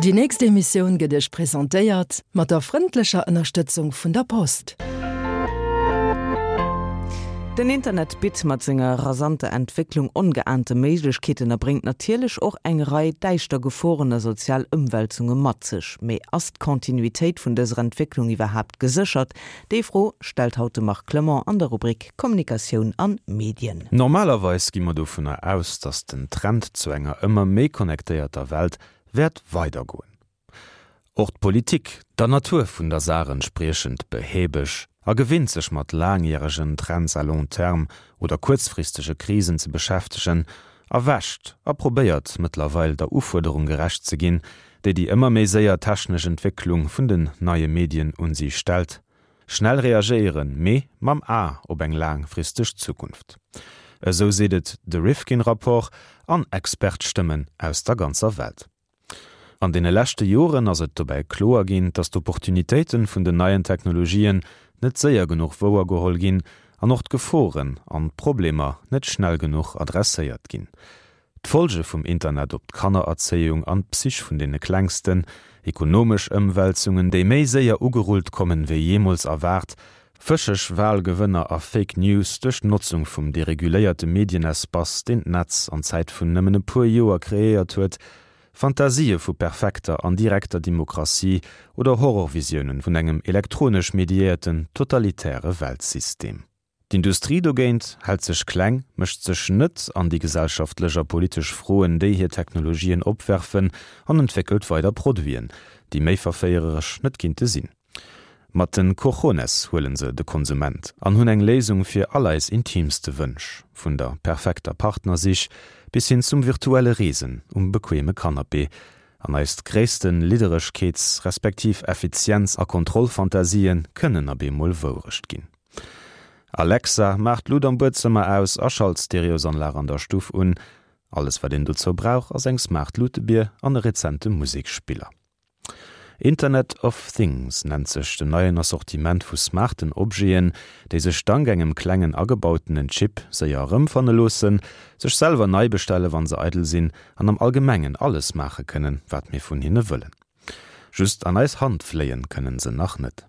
Déi nächst Emissioun gëtt Iech presentéiert mat der frëndlecher Ënnerstëtzung vun der Post. Den Internet bitt mat senger rasanter Entwécklung ongeahnte Méiglechkeeten a bréngt natierlech och eng Rei däischter Geforen a sozial Ëmwälzunge mat sech. Mee ass d'Kontinuitéit vun dëser Entwécklung iwwerhaapt geséchert? Déi Fro stellt haut de Marc Clement an der Rubrik Kommunikatioun an Medien. Normalerweis gi mer dovunner aus, dass den Trend zu enger ëmmer méi connectéierter Welt wäert weidergoen. Och d'Politik, der Natur vun der Saach entspriechend behäbeg a gewinnt sech mat laangjäregen Trends à long terme oder kuerzfristege Krisen ze beschäftegen, erwächt a probéiert mëttlerweil der Ufuerderung gerecht ze ginn, déi déi ëmmer méi séier technesch Entwécklung vun den neie Medien un si stellt. Schnell reagéieren, mee mam A op eng laangfristeg Zukunft. Esou seet et de Rifkin-Rapport an Expertstëmmen aus der ganzer Welt. An deene leschte Joren ass et dobäi kloer ginn, dass d'Opportunitéite vun den neien Technologien net séier genuch wouergeholl ginn an och d'Geforen an d'Problemer net schnell genuch adresséiert ginn. D'Folge vum Internet op d'Kannererzéiung an d'Psych vun deene Klengsten, ekonomesch Ëmwälzungen, déi méi séier ugerullt kommen, wéi jeemools erwaart, fëscheg Walgewënner a Fake News duerch d'Notzung vum dereguléierte Medienespace, deen d'Netz an Zäit vun nëmmen e puer Joer kreéiert huet, Fantasië vu perfekter an direkter Demokratie oder Horrorvisiounen vun engem elektronesch mediéierten totalitäre Weltsystem. D'Industrie dogéint hält sech kleng, mécht sech net an déi gesellschaftlech a politesch Froen, déi hir Technologien opwerfen an entwéckelt weider Produiten, déi méi verféiereresch net kinnte sinn. Mat den Cojones huelen se de Konsument an hunn eng Léisung fir all eis intiimste Wënsch, vun der perfekter Partnersich bis hin zum virtuelle Reesen um bequeme Canapé. An eist gréisste Lidderegkeets respektiv Effizienz a Kontrollfantasien kënnen ab eemol Wourecht ginn. Alexa, maach d'Lut am Buedzëmmer aus a schalt d'Stereosanlag an der Stuff un. Alles wat een dozou brauch ass eng smart Lutebier an e rezente Musekspiller. Internet of Things nennt sech den neien Assortiment vu smarten Objeten, déi sech dank engem klengen agebautenen Chip séier erëmfanne loossen, sech selwer nei bestelle wann se eidel sinn an am Allgemengen alles maache kënnen, wat mir vun hinne wëllen. Just an eis Hand fléien kënnen se nach net.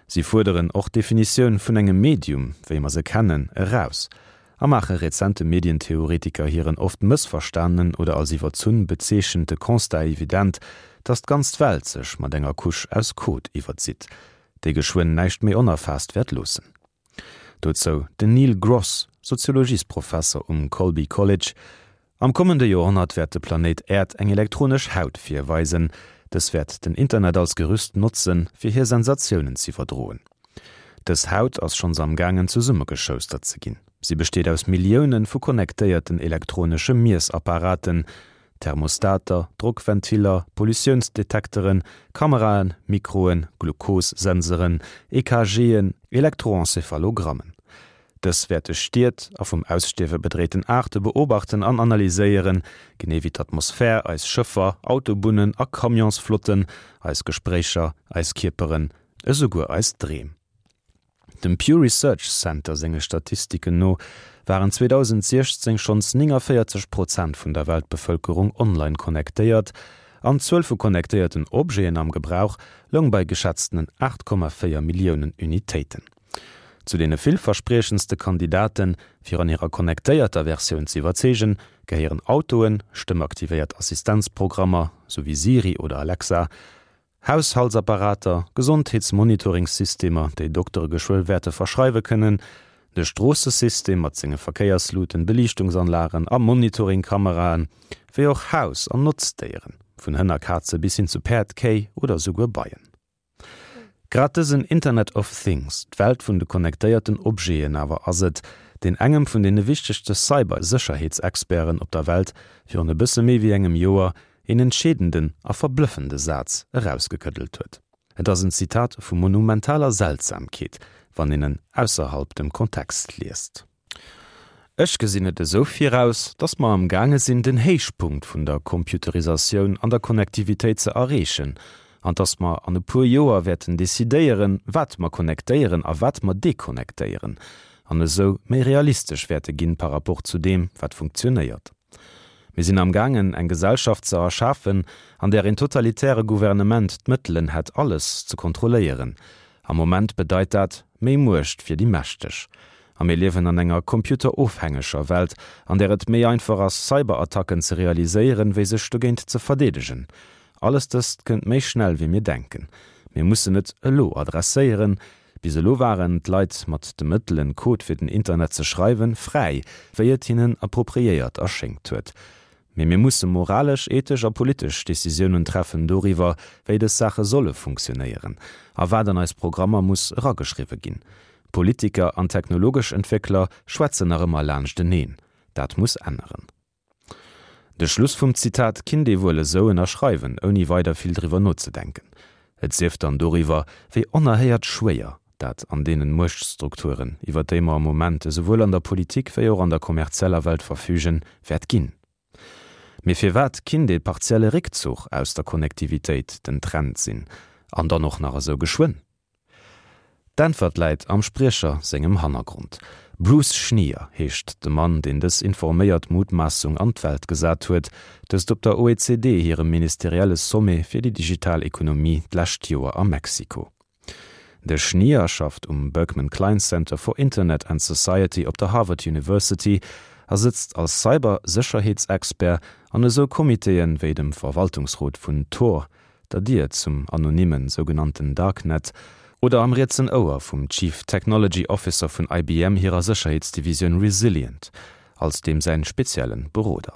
Si fuerderen och d'Definitioun vun engem Medium, wéi mer se kennen, eraus a maache rezente Medientheoretiker hiren oft mëssverstanenen oder als iwwerzunn bezeechente Constat evident, datt d'ganz Welt sech mat enger Couche aus Code iwwerzitt, déi geschwënn näischt méi onerfaasst wäert loossen. Dozou den Neil Gross, Soziologiesprofesser um Colby College, Am kommende Joerhonnert wäert de Planéit Äerd eng elektronesch Haut virweisen. Dës wäert den Internet als Gerüst notzen, fir hir Sensatiounen z'iwwerdroen. Dës Haut ass schonns am gaangen zesummegeschoustert ze ginn. Si besteet aus Millioune vu connectéierten elektronesche Miessapparaten, Thermostater, Drockventiller, Pollutiounsdetekteren, Kameraen, Mikroen, Glukossenseren, EKGen, Elektroencéphalogrammen. Dës wäerte Stied a vum Ausstierwe bedréiten Aarte beobachten an analyséieren, genee wéi d'Atmosphär, eis Schëffer, Autobunnen a Camionsflotten, eis Gespréicher, eis Kierperen, esouguer eis Dreem. Dem Pew Research Center senge Statistiken no waren 2016 schonns 49 Prozent vun der Weltbevëlkerung online connectéiert an d'Zuel vu connectéierten Objeten am Gebrauch loung bei geschätztenen 8,4 Milliounen Unitéiten. Zu deene villverspriechendste Kandidaten, fir an hirer connectéierter Versioun ze iwwerzeegen, gehéieren Autoen, stëmmaktivéiert Assistenzprogrammer, sou wéi Siri oder Alexa, Haushaltsapparater, Gesondheetsmonitoringsystemer, déi Doktere geschwë wäerte verschreiwe kënnen, de Stroossesystem mat senge Verkéiersluten, Beliichtungsanlagen a Monitoringkameraen, wéi och Haus an Notzdéieren, vun Hënn a Kaze bis hin zu Päerd, Kéi oder souguer Beien. Grad dësen Internet of Things, d'Welt vun de connectéierten Objeten awer ass et, deen engem vun deene wichtegste Cyber-Sécherheetsexperten op der Welt virun e bësse méi wéi engem Joer een entscheedenden a verblëffende Saz erausgekëddelt huet. Et ass en Zitat vu monumentaler Seltsamkeet, wann een en ausserhalb dem Kontext liest. Ech gesinn et esou viraus, dass mer am gaange sinn den Héichpunkt vun der Computerisatioun an der Connectivitéit ze erreechen an dass mer an e puer Joer wäerten decidéieren, wat mer connectéieren a wat mer deconnectéieren an esou méi realistesch wäerte ginn par rapport zu deem, wat funktionéiert. Mir sinn am gaangen, eng Gesellschaft ze erschafen, an där een totalitäre Gouvernement d'Mëttelen hätt, alles ze kontrolléieren. Am Moment bedeit dat, méi Muecht fir déi Mächteg. A mir liewen an enger computerofhängeger Welt, an där et méi einfach ass, Cyberattacken ze realiséieren, wéi sech dogéint ze verdeedegen. Alles dëst kënnt méi schnell, wéi mir denken. Mir mussen et elo adresséieren. Bis elo waren d'Leit mat de Mëttelen, Code fir den Internet ze schreiwen, fräi, wéi et hinnen appropriéiert erschéngt huet. Mee mir musse moralesch, ethesch a politesch Decisiounen treffen doriwwer, wéi dës Saache solle funktionéieren a wat an eis Programmer muss erageschriwwe ginn. Politiker an technologesch Entwéckler schwätzen nach ëmmer laanschteneen. Dat muss änneren. De Schluss vum Zitat kinnt ee wuel esou ënnerschreiwen, ouni weider vill driwwer nozedenken. Et sief dann doriwwer, wéi onerhéiert schwéier dat an deenen Muechtstrukturen, iwwer déi mer am Moment esouwuel an der Politik wéi och an der kommerzieller Welt verfügen, wäert ginn. Mee firwat kinnt ee partielle Réckzuch aus der Konnektivitéit den Trend sinn, an dann och nach esou geschwënn? D'Äntwert läit am Spriecher sengem Hannergrond. Bruce Schneier heescht de Mann, deen dës informéiert Mutmaassung an d'Welt gesat huet, dëst op der OECD hirem ministerielle Sommet fir déi digital Ekonomie d'lescht Joer a Mexiko. De Schneier schafft um Berkman Klein Center for Internet and Society op der Harvard University a sëtzt als Cyber-Sécherheetsexpert an esou Comitéen wéi dem Verwaltungsrot vun Tor, der Dier zum anonymen sougenannten Darknet, oder am rietsen Ouer vum Chief Technology Officer vun IBM hirer Sécherheetsdivisioun Resilient, als deem säin speziellen Beroder.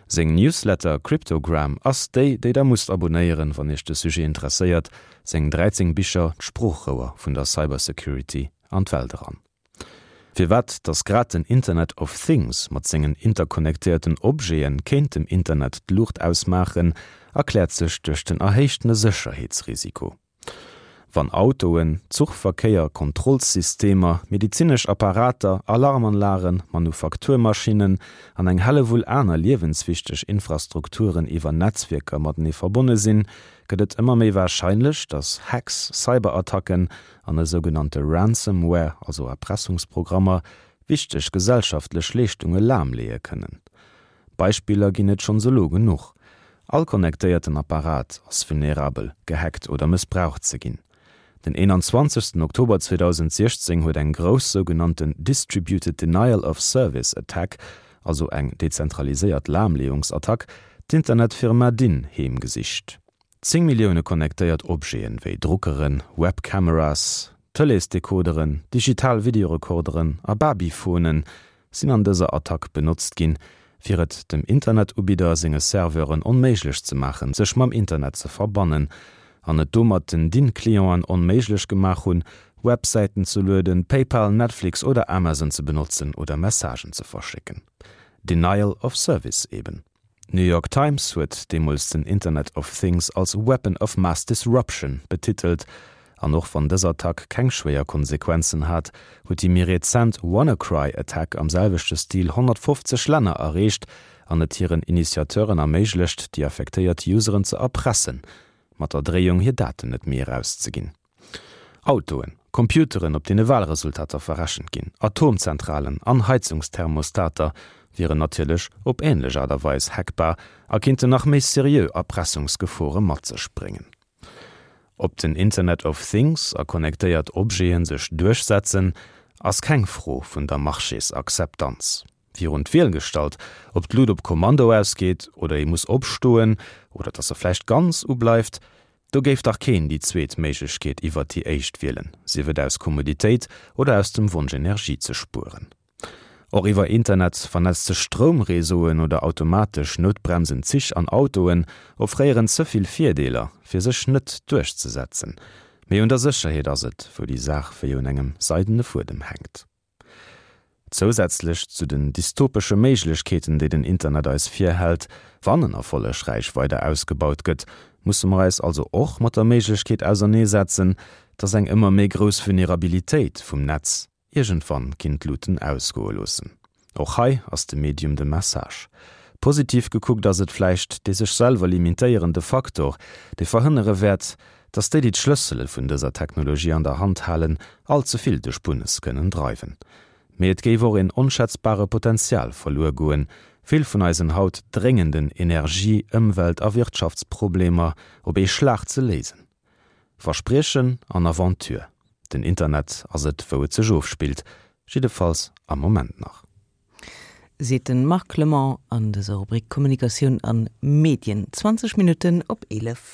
Seng Newsletter Cryptogram ass déi, déi der musst abonéieren, wann iech de Sujet interesséiert, seng 13 Bicher d'Sproochrouer vun der Cybersecurity an d'Welt eran. Firwat dass grad den Internet of Things mat sengen interconnectéierten Objete kéint dem Internet d'Luucht ausmaachen, erkläert sech duerch den erhéichtene Sécherheetsrisiko. Wann Autoen, Zuchverkéier, Kontrollsystemer, medizinesch Apparater, Alarmanlagen, Manufakturmaschinnen an eng Hellewull aner liewenswichteg Infrastrukturen iwwer Netzwierker matenee verbonne sinn, gëtt et ëmmer méi warscheinlech, dass Hacks, Cyberattacken an e sougenannte Ransomware, also Erpressungsprogrammer, wichteg gesellschaftlech Leeschtunge lahmleeë kënnen. Beispiller ginn et schonns elo genuch. All connectéierten Apparat ass vulnerabel, gehackt oder mëssbraucht ze ginn. Den 21 Oktober 2016 huet eng grouss sougenannten Distributed Denial of Service Attack, also eng dezentraliséiert Lahmleeungsattack, d'Internetfirma Dyn heemgesicht. 10 Millioune connectéiert Objeten, wéi Druckeren, Webcameras, Tëleesdecoderen, digital Videorekorderen a Babyphonen, sinn an dëser Attack benotzt ginn, fir et dem Internetubidder senge Serveuren onméiglech ze maachen, sech mam Internet ze verbannen, an et domat den DIN-Clienten onméiglech gemaach hunn, Websäiten ze lueden, PayPal, Netflix oder Amazon ze benotzen oder Messagen ze verschécken. Denial of Service eben. D'New York Times huet deemools den Internet of Things als Weapon of Mass Disruption betitelt. An och wann dës Attack keng schwéier Konsequenzen hat, huet déi méi rezent WannaCry-Attack am selwechte Stil 150 Länner erreecht an et hiren Initiateuren erméiglecht, déi affektéiert Useren ze erpressen, mat der Dréiung hir Daten net méi erauszeginn. Autoen, Computeren, op deene Walresultater verrechent ginn, Atomzentralen an Heizungsthermostater wieren natierlech op änlech Aart a Weis hackbar a kinnten nach méi seriö Erpressungsgefore mat sech bréngen. Ob den Internet of Things a connectéiert Objete sech duerchsetzen, ass keng Fro vun der Marchésakzeptanz. Virun d'Wiel gestallt, ob d'Lut op Kommando ausgeet oder ee muss opstoen oder dass se vläicht ganz ubleift, do géif dach keen déi zweet Méiglechkeet iwwert déi éischt wielen, sief et aus Kommoditéit oder aus dem Wonsch Energie ze spueren. Och iwwer Internet vernetzte Stroumreseauen oder automatesch noutbremsend Zich an Autoen offréieren ze vill Virdeeler, fir sech net duerchzesetzen. Mee un der Sécherheet ass et, wou déi Saach wéi un engem seidene Fuedem hänkt. Zousätzlech zu den dystopesche Méiglechkeeten, déi den Internet eis virhält, wann en erfollegräich weider ausgebaut gëtt, musse mer eis also och mat der Méiglechkeet auserneesetzen, dass eng ëmmer méi grouss Vulnerabilitéit vum Netz iergendwann kinnt d'Luuten ausgoe loossen. Och hei ass de Medium de Message. Positiv gekuckt ass et vläicht dee sech selwer limitéierende Faktor, dee verhënnere wäert, dass déi, déi d'Schlëssele vun dëser Technologie an der Hand halen, all ze vill de Spunnes kënnen dreiwen. Mee et géif och een onschätzbare Potenzial verluer goen. vill vun eisen haut dréngenden Energie-, Ëmwelt a Wirtschaftsproblemer op ee Schlag ze léisen. Verspriechen an Aventure, den Internet ass et wou et sech ofspillt, jiddefalls am Moment nach. Seet de Marc Clement an dëser Rubrik Kommunikatioun an Medien. 20 Minutten op 11.